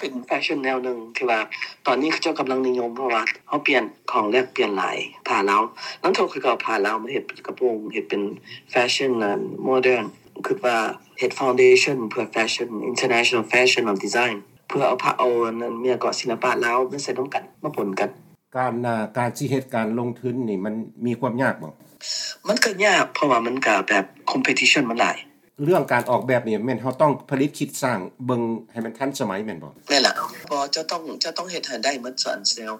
ເປັນແຟຊັ່ນແນວໜຶ່ງທີ່ວ່າຕອນນີ້ເຂົາເຈົ້າກຳລັງນິຍົມ ເພາະວ່າເຮົາປ່ຽນຂອງແລກປ່ຽນຫຼາຍ ຜ້າລາວ. ນຳໂທຂ້ອຍກໍເອົາຜ້າລາວມາເຮັດເປັນກະໂປງ ເຮັດເປັນແຟຊັ່ນ ໂມເດີນ. ຄິດວ່າເຮັດ foundation ເພື່ອ fashion international fashion of design ເພື່ອເອົາພະ ເອົາອັນນັ້ນ ແມ່ນກໍ ສິລະປະລາວມາໃສ່ນຳກັນ ມາປົນກັນ. ການ ອ່າ ການຊິເຮັດການລົງທຶນນີ້ ມັນມີຄວາມຍາກບໍ່? ມັນກໍຍາກ ເພາະວ່າມັນກໍແບບ competition ມັນຫຼາຍ. ເລື່ອງການອອກແບບນີ້ ແມ່ນເຮົາຕ້ອງຜະລິດຄິດສ້າງເບິ່ງໃຫ້ມັນທັນສະໄໝແມ່ນບໍ່? ແມ່ນລະ. ບໍ່ ເຈົ້າຕ້ອງ ເຈົ້າຕ້ອງເຮັດໃຫ້ໄດ້ໝົດ ສ່ວນແຊວ.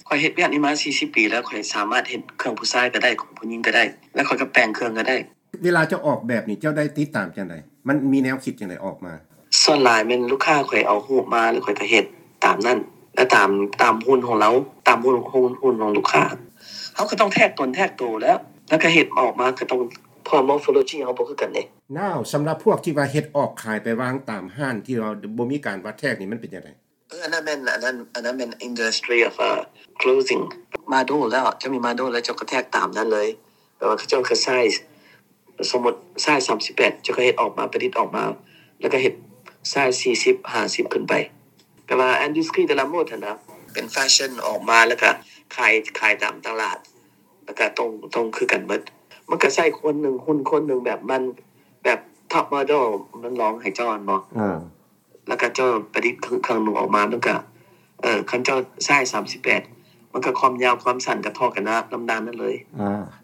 ຂ້ອຍເຮັດວຽກນີ້ມາສີ່ສິບປີແລ້ວ ຂ້ອຍສາມາດເຮັດເຄື່ອງຜູ້ຊາຍກໍໄດ້ ຂອງຜູ້ຍິງກໍໄດ້ ແລະ ຂ້ອຍກໍແປງເຄື່ອງກໍໄດ້. ເວລາເຈົ້າອອກແບບນີ້ ເຈົ້າໄດ້ຕິດຕາມຈັ່ງໃດ? ມັນມີແນວຄິດຈັ່ງໃດອອກມາ? ສ່ວນຫຼາຍແມ່ນລູກຄ້າຂ້ອຍເອົາຮູບມາ ແລ້ວຂ້ອຍກໍເຮັດຕາມນັ້ນ ແລະ ຕາມ ຕາມຮຸ່ນຂອງລາວ ຕາມຮຸ່ນ ຮຸ່ນຂອງລູກຄ້າ. ເຮົາກໍຕ້ອງແທກຕົນແທກໂຕແລ້ວ ແລ້ວກໍເຮັດອອກມາກໍຕ້ອງ ເພາະວ່າ morphology ເຮົາບໍ່ຄືກັນເດ້. Now ສຳລັບພວກທີ່ວ່າເຮັດອອກຂາຍໄປວາງຕາມຮ້ານທີ່ວ່າບໍ່ມີການວັດແທກນີ້ ມັນເປັນຈັ່ງໃດ? ເອີ ອັນນັ້ນແມ່ນ ອັນນັ້ນ ອັນນັ້ນແມ່ນ industry of clothing. ໂມເດນແລ້ວ ເຈົ້າມີໂມເດນແລ້ວ ເຈົ້າກໍແທກຕາມນັ້ນເລີຍ. ແປວ່າເຂົາເຈົ້າກໍ size ສົມມຸດ size ສາມສິບແປດ ເຈົ້າກໍເຮັດອອກມາ ປະດິດອອກມາ ແລ້ວກໍເຮັດ size ສີ່ສິບ ຫ້າສິບຂຶ້ນໄປ. ແປວ່າ industry de la mode ຫັ້ນນະ ເປັນແຟຊັ່ນອອກມາ ແລ້ວກໍຂາຍ ຂາຍຕາມຕະຫຼາດ ແລ້ວກໍຕ້ອງ ຕ້ອງຄືກັນໝົດ. ມັນກໍໃຊ້ຄົນໜຶ່ງ ຮຸ່ນຄົນໜຶ່ງແບບມັນ ແບບ top model ມັນລອງໃຫ້ເຈົ້າແມ່ນບໍ່? ເອີ ແລ້ວກໍເຈົ້າປະດິດເຄື່ອງ ເຄື່ອງນຸ່ງອອກມາ ມັນກໍ ເອີ ຄັນເຈົ້າ size ສາມສິບແປດ ມັນກໍຄວາມຍາວຄວາມສັ້ນກໍທໍ່ກັນນະ ນຳດ້ານນັ້ນເລີຍ. ອ່າ